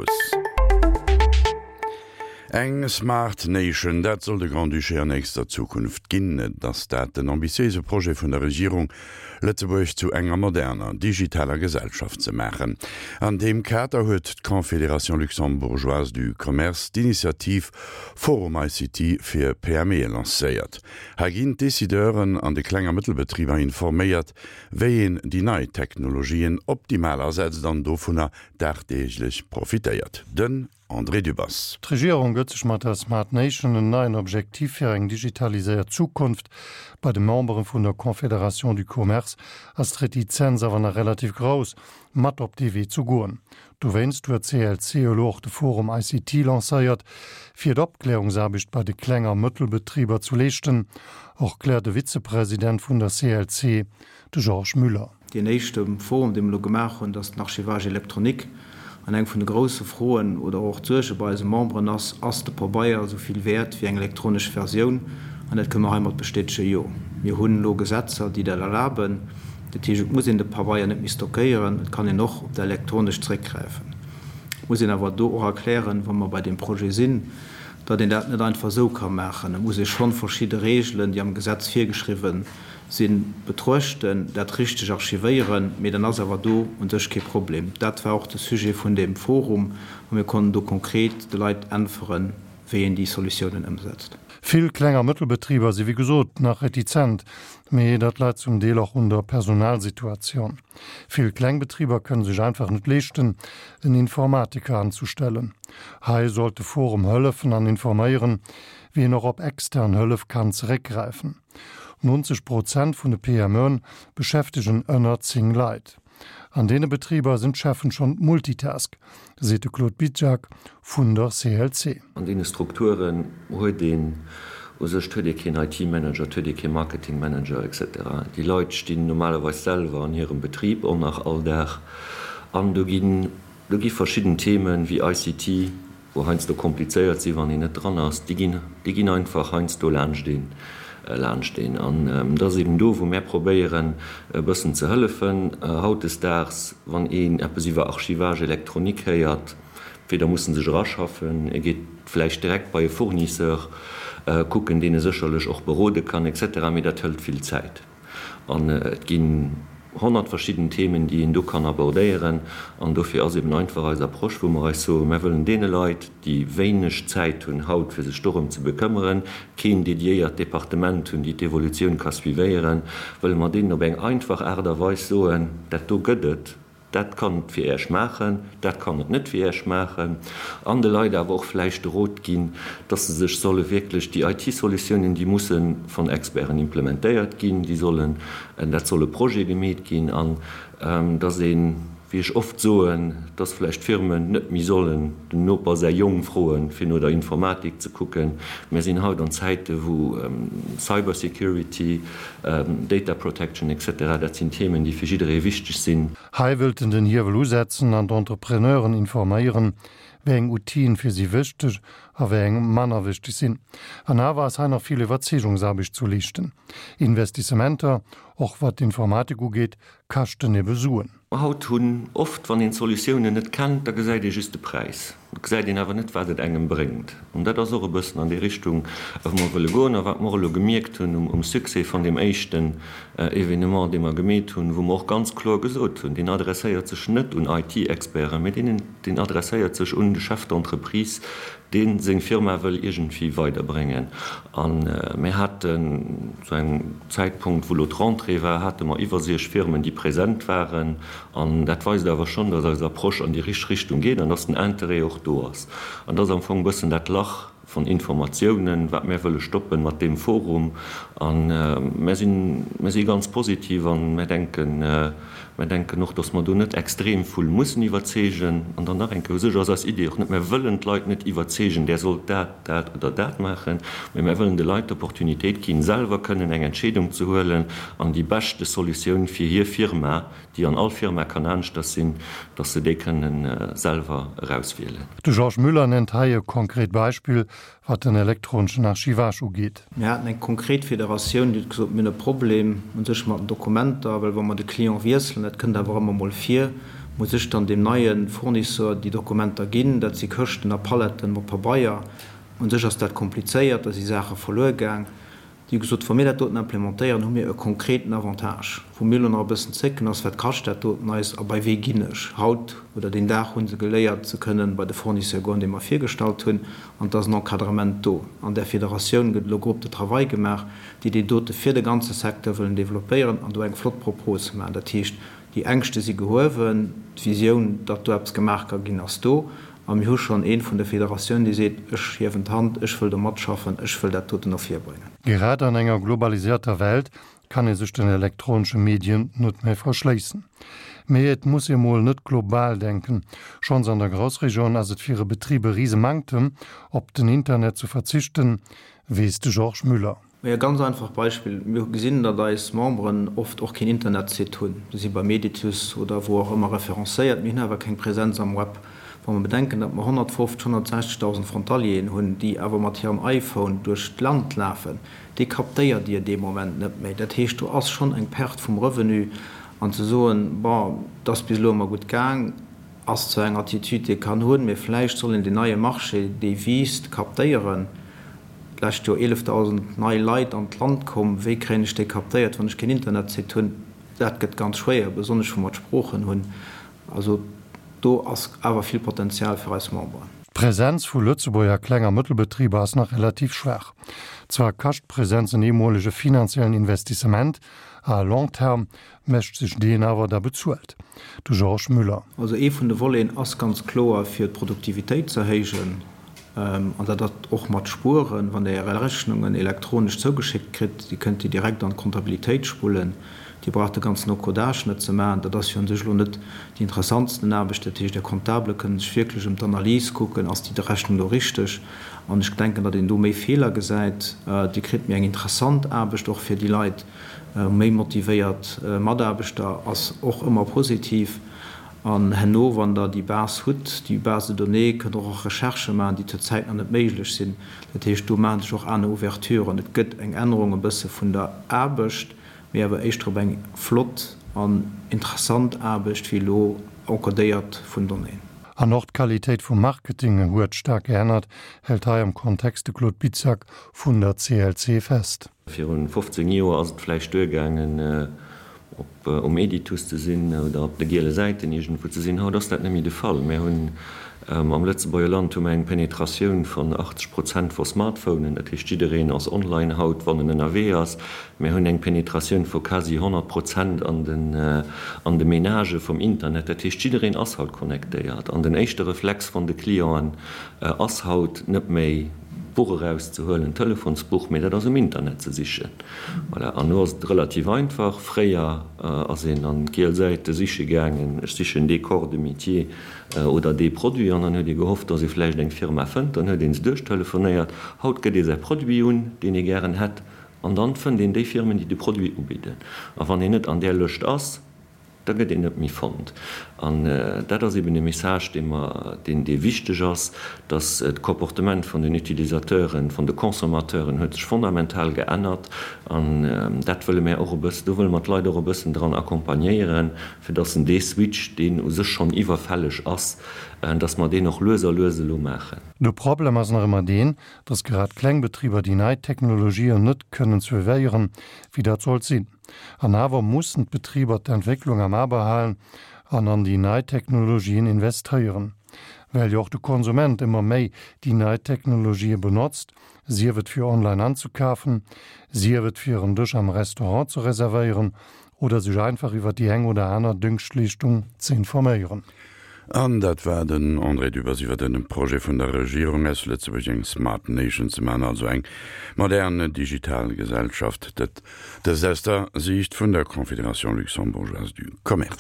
Haus. Eng Smart Nation, dat soll de Grand-Duché an nächster Zukunft ginn. Et ass dat den ambitiéise Projet vun der Regierung, Lëtzebuerg zu enger moderner, digitaler Gesellschaft ze maachen. An deem Kader huet d'Confédération luxembourgeoise du commerce d'Initiativ Forum ICT fir PMEe lancéiert. Hei ginn d'Decideuren an de Kleng a Mëttelbetriber informéiert, wéi een déi nei Technologien optimal asetzt an dovunner dagdeeglech profitéiert. Den André Dübbers. D'Regierung gëtt sech mat der Smart Nation en neien Objektiv fir eng digitaliséiert Zukunft. Bei de Membere vun der Confédération du Commerce ass d'Retizenz awer nach relativ grouss, mat op dee Wee ze goen. Dowéinst huet d'CLC elo och de Forum ICT lancéiert, fir d'Opklärungsaarbecht bei de Kleng a Mëttelbetriber zu leeschten, erkläert de Vizepresident vun der CLC, de Georges Müller. Deen éischte Forum, dee mer elo gemaach hunn, dat ass den Archivage électronique. An eng vun de grousse Froen oder och d'Suerge bei eise Memberen ass, Ass de Pabeier esou vill wäert wéi eng elektronesch Versioun? An dat kënne mer heimat bestätegen, Jo. Mir hunn elo Gesetzer, déi dat erlaben. Dat heescht, et muss een de Pabeier net méi stockéieren, et kann een och op dat Elektronescht zréckgräifen. Et muss een awer do och erklären, wa mer bei deem Projet sinn, datt een dat net einfach esou ka maachen. Et muss ee schonn verschidde Regeln, déi am Gesetz virgeschriwwen sinn, betruechten, dat richteg archivéieren, mee dann ass awer do u sech kee Problem. Dat war och de Sujet vun deem Forum a mir konnten do konkret de Leit äntweren, wéi een déi Solutiounen ëmsetzt. Vill Kleng a Mëttelbetriber si wéi gesot nach retizent, mee dat läit zum Deel och un der Personalsituatioun. Vill kleng Betriber kënne sech einfach net leeschten, en Informatiker anzustellen. Hei sollt de Forum hëllefen an informéieren, wéi een och op extern Hëllef kann zeréckgräifen. 90 Prozent vun de PMEen beschäftegen ënner 10 Leit. An deene Betriber sinn d'Cheffen schonn d'Multitask, seet de Claude Bizjak vun der CLC. An deene Strukturen huet een u sech, et huet ee keen IT-Manager, et huet ee kee Marketing-Manager, etc. Déi Leit stinn normalerweis selwer an hirem Betrib och nach all Dag an do ginn, do gi verschidden Themen wéi ICT, wou heiansdo komplizéiert sinn, wann een net dran ass, déi ginn, déi ginn einfach heiansdo laanscht een, laanscht een. An et ass eben do, wou mär probéieren, e bëssen ze hëllefen. Hautdesdaags, wann een eppes iwwer Archivage électronique héiert, weder muss en sech eraschaffen, e geet vläicht direkt bei e Fournisseur kucken, deen e sécherlech och berode kann, et cetera, mee dat hëlt vill Zäit. An et ginn 100 verschidden Themen, déi een do kann abordéieren. An dofir ass eben einfach eis Approche, wou mer eis soen, Mer wëllen deene Leit, déi wéineg Zäit hunn haut, fir sech dorëm ze bekëmmeren, keen dediéiert Departement hunn, déi d'Evolutioun ka suivéieren, wëlle mer deenen op eng einfach Aart a Weis soen, Dat do gëtt et. Dat kann et fir Iech maachen, dat kann et net fir Iech maachen. An de Leit awer och vläicht de Rot ginn, dass se sech solle wierklech déi IT-Solutiounen, déi musse von Experten implementéiert ginn, déi sollen, dat soll e Projet gemeet ginn an dass een, wéi ech oft soen, dass vläicht d'Firmen net méi sollen dem Noper säi Jong froen, fir no der Informatik ze kucken. Mir sinn haut an Zäite wou Cybersecurity, Data Protection etc. Dat sinn Themen, déi fir jidderee wichteg sinn. Hei wëllt en den Hiewel usetzen an d'Entrepreneuren informéieren, wéi eng Outile fir si wichteg a wéi eng manner wichteg sinn. An awer ass hei nach vill Iwwerzeegungsaarbecht zu leeschten. Investissementer, och wat d'Informatik ugeet, kaschten ebe Suen. Haut hunn oft, wann een d'Solutiounen net kennt, da gesäit ee just de Präis, et gesäit een awer net, wat et engem bréngt. An dat ass och e bëssen an déi Richtung, wou mer wëlle goen a wat mer och elo gemierkt hunn um Succès von deem éischten Evenement, dee mer gemeet hunn, wou mer och ganz kloer gesot hunn, deen adresséiert sech net un IT-Experten, mä deen, deen adresséiert sech un de Chef d'entreprise, dee seng Firma wëll iergendwéi weiderbréngen. A mir haten zu engem Zäitpunkt, wou elo d'Rentrée war, hate mer iwwer 60 Firmen, déi present waren. An dat weist awer schonn, datt eis Approche an déi richteg Richtung geet an datt den Interêt och do ass. An dat ass am Fong e bëssen dat Lach von Informatiounen, wat mär wëlle stoppen mat deem Forum. A mär sinn, mär si ganz positiv a mär denken, Mär denken och, dass mer do net extrem vull mussen iwwerzeegen. An dann nach eng Kéier, u sech ass eis Idee och net, mär wëllen d'Leit net iwwerzeegen, där sollt dat, dat oder dat maachen, mä mär wëllen de Leit d'Opportunitéit ginn, selwer kënnen eng Entscheedung ze huelen an déi beschte Solutioun fir hir Firma, déi an all Firma kann aneschters sinn, dass se déi kënnen selwer erauswielen. De Georges Müller nennt hei e konkret Beispill, wat den elektroneschen Archivage ugeet. Mir haten eng konkret Federatioun, déi huet gesot, mir hunn e Problem u sech mat den Dokumenter, well wa mer de Client wiesselen, dat kënnt awer ëmmer mol vir. Muss ech dann deem neie Fournisseur déi Dokumenter ginn? Dat si Këschten a Paletten mat Pabeier. Un sech ass dat komplizéiert, da si Saache verluer gaang. Déi hu gesot, wa mir dat doten implementéieren, hu mir e konkreten Avantage. Wou mir elo nach e bëssen zécken, ass, Wat kascht dat doten eis a bei wee ginn ech? Haut oder deen Dag hu se geléiert, se kënnen bei de Fournisseur goen, dee mer virgestallt hunn, an et ass en Encadrement do. An där Federatioun gëtt elo Groupe de travail gemaach, déi deen dote fir de ganze Secteur wëllen developpéieren an do eng flott Propos maachen. Dat heescht, déi Ängschte si gehuewen, d'Visioun, datt do eppes gemaach ka ginn, ass do. A mir hu schonn ee vun der Federatioun, dee seet, Ech hiewen d'Hand, ech wëll do matschaffen, ech wëll dat doten no vir bréngen. Grad an enger globalisierter Welt kann ee sech den elektronesche Medien net méi verschléissen. Mee et muss ee mol net global denken. Schonns an der Groussregioun ass et fir e Betrib e Risemanktem, op den Internet ze verzichten, weess de Georges Müller. E ganz einfacht Beispill, Mir gesinn, datt eis Memberen oft och keen Internetsite hunn. Se si bei Meditus oder wou och ëmmer referencéiert, mee hunn awer keng Präsenz am Web. Wa mer bedenken, datt mer 150, 160.000 Frontalieren hunn, déi awer mat hirem iPhone duerch d'Land lafen, dee captéiert Dir dee Moment net méi. Dat heescht, do ass schonn eng Perte vum Revenu. An ze soen, bon, et ass bis elo ëmmer gutt gaang, ass zwar eng Attitude, déi ee kann hunn, mee vläicht soll een deen neie Marché, dee wiisst, captéieren. D'lescht Joer 11.000 nei Leit an d'Land komm. Wéi kréien ech déi captéiert, wann ech keen Internetsite hunn? Dat gëtt ganz schwéier, besonnesch wou mer d'Sproochen hunn. Also do ass awer vill Potenzial fir eis Memberen. D'Präsenz vu Lëtzebuerger Kleng a Mëttelbetriber ass nach relativ schwaach. Zwar kascht d'Präsenz en eemolege finanziellen Investissement, à long terme mécht sech deen awer da bezuelt. De Georges Müller. Also ee vun de Voleten ass ganz kloer fir d'Produktivitéit ze erhéijen. An dat ass och mat Spueren, wann Der Är Rechnungen elektronesch zougeschéckt kritt, Dir kënnt déi direkt an d'Kontabilitéit spullen, Dir braucht de ganzen Encodage net ze maachen. Dat ass jo un sech elo net déi interessantsten Aarbecht. Dat heescht, Är Comptable kënnen sech wierklech ëm d'Analys kucken, ass déi Rechnung do richteg? An ech denken, datt een do méi Feeler gesäit. Dir kritt méi eng interessant Aarbecht och fir déi Leit. Méi motivéiert Mataarbechter ass och ëmmer positiv. An herno, wann Der déi Base hutt, déi Base de données, kënnt Der och Recherchë maachen, déi zurzäit nach net méiglech sinn. Dat heescht, do maache sech och aner Ouverturen. Et gëtt eng Ännerung e bësse vun der Aarbecht, mee awer éischter op eng flott an interessant Aarbecht wéi elo encodéiert vun Donnéeën. An och d'Qualitéit vum Marketing huet staark geännert, hält hei am Kontext de Claude Bizjak vun der CLC fest. Virun 15 Joer ass et vläicht duergaangen, op um Editus ze sinn oder op de giele Säiten iergendwou ze sinn. Haut ass dat net méi de Fall. Mir hunn am Lëtzebuerger Land hu mer eng Penetratioun vun 80 Prozent vu Smartphonen. Dat heescht, jiddereen ass online haut, wann en ënnerwee ass. Mir hunn eng Penetratioun vu quasi 100 Prozent an den an de Menagë vum Internet. Dat heescht, jiddereen ass haut connectéiert. An den éischte Reflex vun de Clienten ass haut net méi, d'Buch erauszehuelen, d'Telefonsbuch, mee dat ass um Internet ze sichen. Voilà, an elo ass et relativ einfach. Fréier ass een an d'giel Säite siche gaangen, ech sichen dee Corps de métier oder dee Produit, an dann huet ee gehofft, dass ee vläicht eng Firma fënnt, dann huet ee se duerchtelefonéiert. Haut gëtt ee säi Produit un, deen ee gären hätt, an dann fënnt een déi Firmen, déi de Produit ubidden. A wann een net an där Lëscht ass, Da gëtt een net méi fonnt. An dat ass eben e Message, dee mer, deen, dee wichteg ass, dass d'Comportement vun den Utilisateuren, vun de Consommateuren huet sech fondamental geännert. An dat wëlle mär och e bëssen, do wëlle mer d'Leit och e bëssen dran accompagnéieren, fir dass en dee Switch, deen u sech schonn iwwerfälleg ass, dass mer deen och lues a lues elo maachen. De Problem ass nach ëmmer deen, dass grad kleng Betriber déi nei Technologien net kënnen suivéieren, wéi dat sollt sinn. An awer mussen d'Betriber d'Entwécklung am A behalen an an déi nei Technologien investéieren. Well jo och de Konsument ëmmer méi déi nei Technologië benotzt, sief et fir online anzekafen, sief et fir en Dësch am Restaurant ze reservéieren oder sech einfach iwwer déi eng oder aner Dëngschtleeschtung ze informéieren. An dat war den André Dübbers iwwer den Projet vun der Regierung aus Lëtzebuerg eng Smart Nation ze maachen, also eng modern digital Gesellschaft. Dat dëst aus der Siicht vun der Confédération luxembourgeoise du commerce.